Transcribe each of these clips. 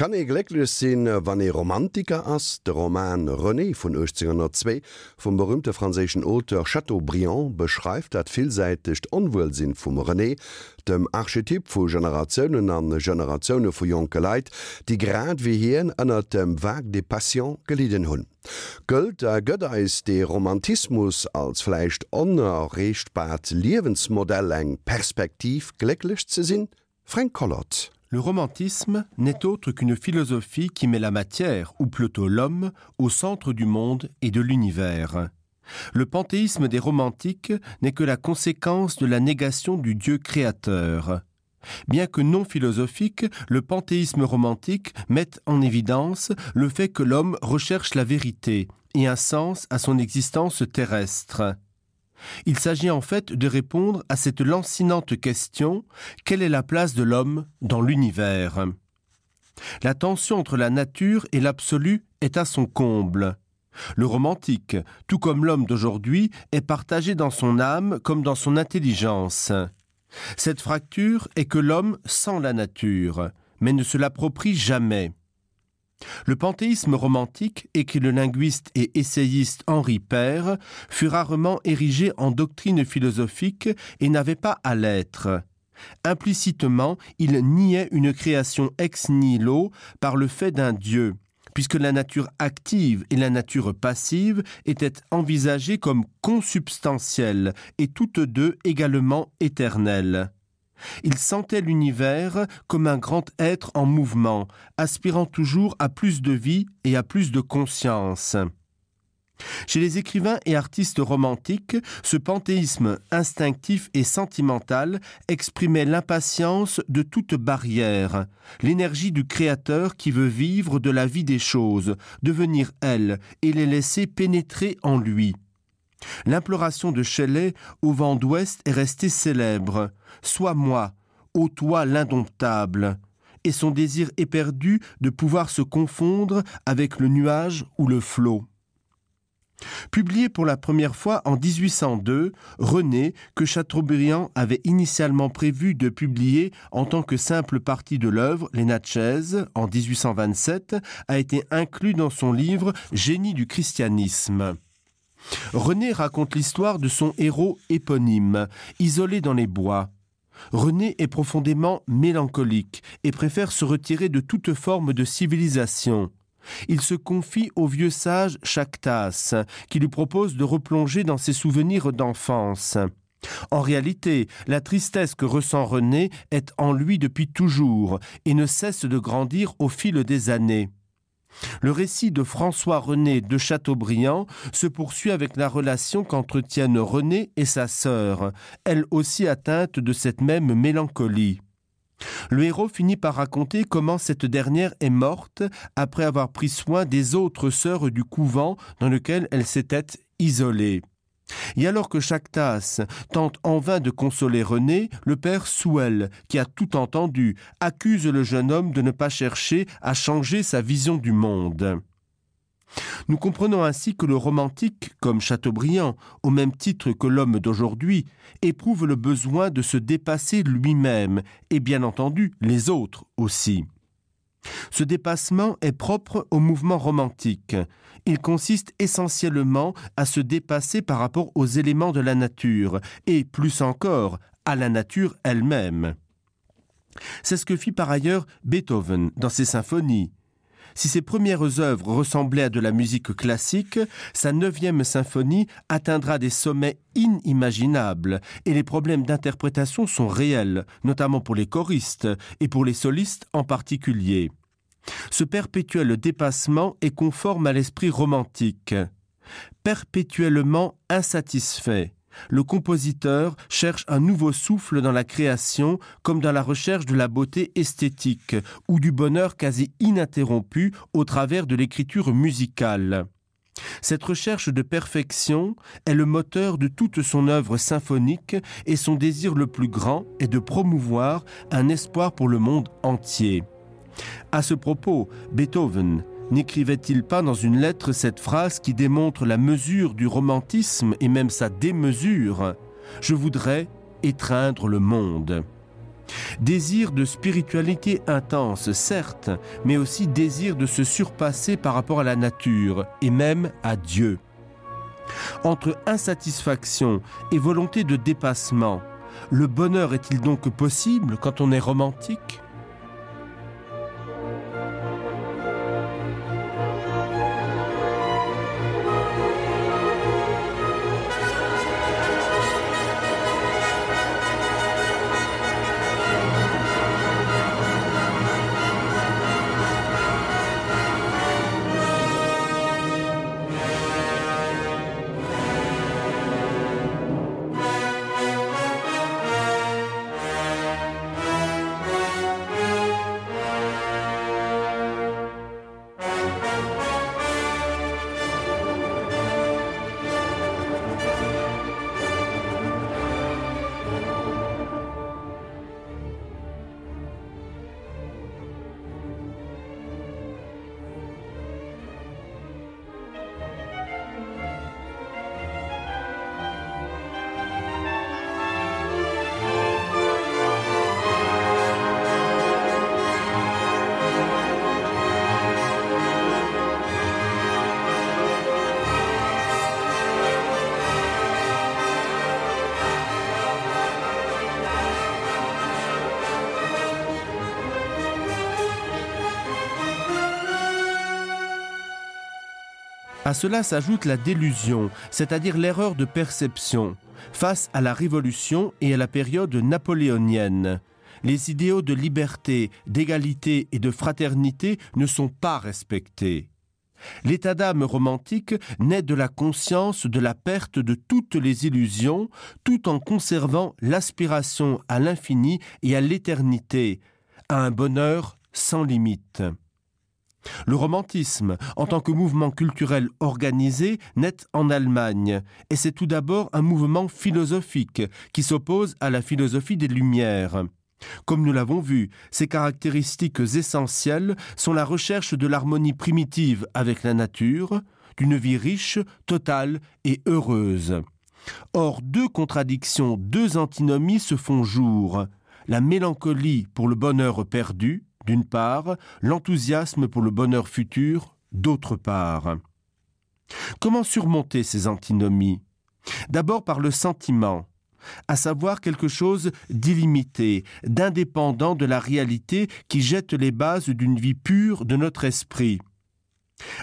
Kann ee glécklech sinn, wann ee Romantiker ass? De Roman René vun 1802 vum berüümte franséischen Auteur Chateaubriand beschreift dat villsäitegt Onwuelsinn vum René, dem Archetyp vu Generatiounen a Generatioune vu jonke Leit, déi grad wéi hien ënnert dem Vague des passions gelidden hunn. Gëllt a gëtt eis dee Romantismus als vläicht onerreechtbart Liewensmodell eng Perspektiv, glécklech ze sinn? Fränk Collot. Le romantisme n'est autre qu'une philosophie qui met la matière, ou plutôt l'homme, au centre du monde et de l'univers. Le panthéisme des romantiques n'est que la conséquence de la négation du dieu créateur. Bien que non philosophique, le panthéisme romantique met en évidence le fait que l'homme recherche la vérité et un sens à son existence terrestre. Il s'agit en fait de répondre à cette lancinante question: quelle est la place de l'homme dans l'univers? La tension entre la nature et l'absolu est à son comble. Le romantique, tout comme l'homme d'aujourd'hui, est partagé dans son âme comme dans son intelligence. Cette fracture est que l'homme sent la nature, mais ne se l'approprie jamais. Le panthéisme romantique, écrit le linguiste et essayiste Henri Père, fut rarement érigé en doctrine philosophique et n'avait pas à l'être. Implicitement, il niait une création ex nihilo par le fait d'un dieu, puisque la nature active et la nature passive étaient envisagées comme consubstantielles et toutes deux également éternelles. Il sentait l'univers comme un grand être en mouvement, aspirant toujours à plus de vie et à plus de conscience. Chez les écrivains et artistes romantiques, ce panthéisme instinctif et sentimental exprimait l'impatience de toute barrière, l'énergie du créateur qui veut vivre de la vie des choses, devenir elle et les laisser pénétrer en lui. L'imploration de Shelley au vent d'ouest est restée célèbre: Sois moi, ô toi l'indomptable, et son désir éperdu de pouvoir se confondre avec le nuage ou le flot. Publié pour la première fois en 1802, René, que Chateaubriand avait initialement prévu de publier en tant que simple partie de l'œuvre, les Natchez, en 1827, a été inclus dans son livre Génie du christianisme. René raconte l'histoire de son héros éponyme, isolé dans les bois. René est profondément mélancolique et préfère se retirer de toute forme de civilisation. Il se confie au vieux sage Chactas, qui lui propose de replonger dans ses souvenirs d'enfance. En réalité, la tristesse que ressent René est en lui depuis toujours et ne cesse de grandir au fil des années. Le récit de François René de Chateaubriand se poursuit avec la relation qu'entretiennent René et sa sœur, elle aussi atteinte de cette même mélancolie. Le héros finit par raconter comment cette dernière est morte après avoir pris soin des autres sœurs du couvent dans lequel elle s'était isolée. Et alors que Chactas tente en vain de consoler René, le père Souel, qui a tout entendu, accuse le jeune homme de ne pas chercher à changer sa vision du monde. Nous comprenons ainsi que le romantique, comme Chateaubriand, au même titre que l'homme d'aujourd'hui, éprouve le besoin de se dépasser lui-même et bien entendu les autres aussi. Ce dépassement est propre au mouvement romantique. Il consiste essentiellement à se dépasser par rapport aux éléments de la nature et, plus encore, à la nature elle-même. C'est ce que fit par ailleurs Beethoven dans ses symphonies. Si ses premières œuvres ressemblaient à de la musique classique, sa neuvième symphonie atteindra des sommets inimaginables et les problèmes d'interprétation sont réels, notamment pour les choristes et pour les solistes en particulier. Ce perpétuel dépassement est conforme à l'esprit romantique. Perpétuellement insatisfait, le compositeur cherche un nouveau souffle dans la création comme dans la recherche de la beauté esthétique ou du bonheur quasi ininterrompu au travers de l'écriture musicale. Cette recherche de perfection est le moteur de toute son œuvre symphonique et son désir le plus grand est de promouvoir un espoir pour le monde entier. À ce propos, Beethoven n'écrivait-il pas dans une lettre cette phrase qui démontre la mesure du romantisme et même sa démesure: Je voudrais étreindre le monde. Désir de spiritualité intense, certes, mais aussi désir de se surpasser par rapport à la nature et même à Dieu. Entre insatisfaction et volonté de dépassement, le bonheur est-il donc possible quand on est romantique? À cela s'ajoute la délusion, c'est-à-dire l'erreur de perception, face à la révolution et à la période napoléonienne. Les idéaux de liberté, d'égalité et de fraternité ne sont pas respectés. L'état d'âme romantique naît de la conscience de la perte de toutes les illusions, tout en conservant l'aspiration à l'infini et à l'éternité, à un bonheur sans limite. Le romantisme, en tant que mouvement culturel organisé, naît en Allemagne, et c'est tout d'abord un mouvement philosophique qui s'oppose à la philosophie des Lumières. Comme nous l'avons vu, ses caractéristiques essentielles sont la recherche de l'harmonie primitive avec la nature, d'une vie riche, totale et heureuse. Or, deux contradictions, deux antinomies se font jour: la mélancolie pour le bonheur perdu, d'une part, l'enthousiasme pour le bonheur futur, d'autre part. Comment surmonter ces antinomies D'abord par le sentiment, à savoir quelque chose d'illimité, d'indépendant de la réalité qui jette les bases d'une vie pure de notre esprit.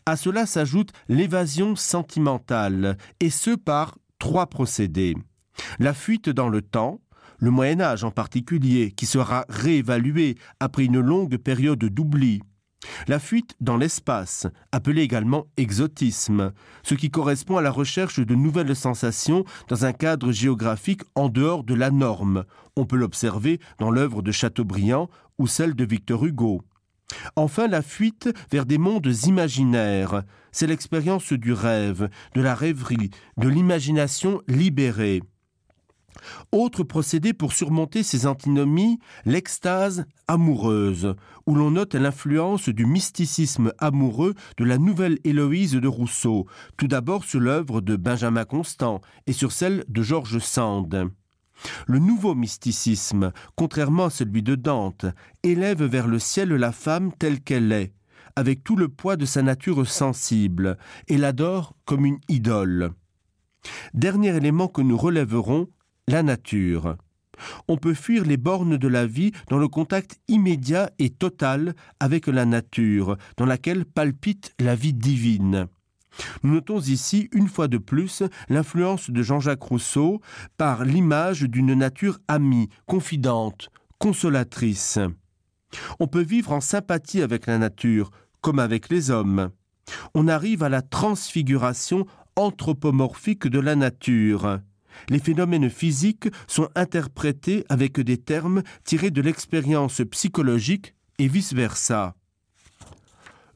À cela s'ajoute l'évasion sentimentale, et ce par trois procédés. La fuite dans le temps, le Moyen Âge en particulier, qui sera réévalué après une longue période d'oubli. La fuite dans l'espace, appelée également exotisme, ce qui correspond à la recherche de nouvelles sensations dans un cadre géographique en dehors de la norme. On peut l'observer dans l'œuvre de Chateaubriand ou celle de Victor Hugo. Enfin la fuite vers des mondes imaginaires, c'est l'expérience du rêve, de la rêverie, de l'imagination libérée. Autre procédé pour surmonter ces antinomies, l'extase amoureuse, où l'on note l'influence du mysticisme amoureux de la nouvelle Héloïse de Rousseau, tout d'abord sur l'œuvre de Benjamin Constant et sur celle de Georges Sand. Le nouveau mysticisme, contrairement à celui de Dante, élève vers le ciel la femme telle qu'elle est, avec tout le poids de sa nature sensible, et l'adore comme une idole. Dernier élément que nous relèverons, la nature. On peut fuir les bornes de la vie dans le contact immédiat et total avec la nature, dans laquelle palpite la vie divine. Nous notons ici, une fois de plus, l'influence de Jean-Jacques Rousseau par l'image d'une nature amie, confidente, consolatrice. On peut vivre en sympathie avec la nature, comme avec les hommes. On arrive à la transfiguration anthropomorphique de la nature. Les phénomènes physiques sont interprétés avec des termes tirés de l'expérience psychologique et vice-versa.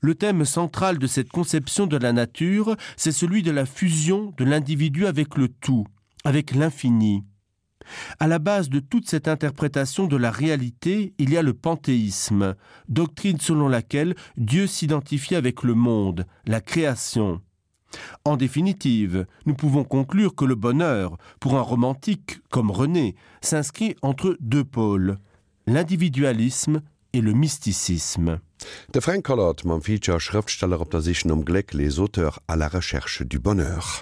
Le thème central de cette conception de la nature, c'est celui de la fusion de l'individu avec le tout, avec l'infini. À la base de toute cette interprétation de la réalité, il y a le panthéisme, doctrine selon laquelle Dieu s'identifie avec le monde, la création. En définitive, nous pouvons conclure que le bonheur, pour un romantique comme René, s'inscrit entre deux pôles. l'individualisme et le mysticisme. De Fränk Collart mam Feature Schrëftsteller op der Sich nom Gléck, Les auteurs à la recherche du bonheur.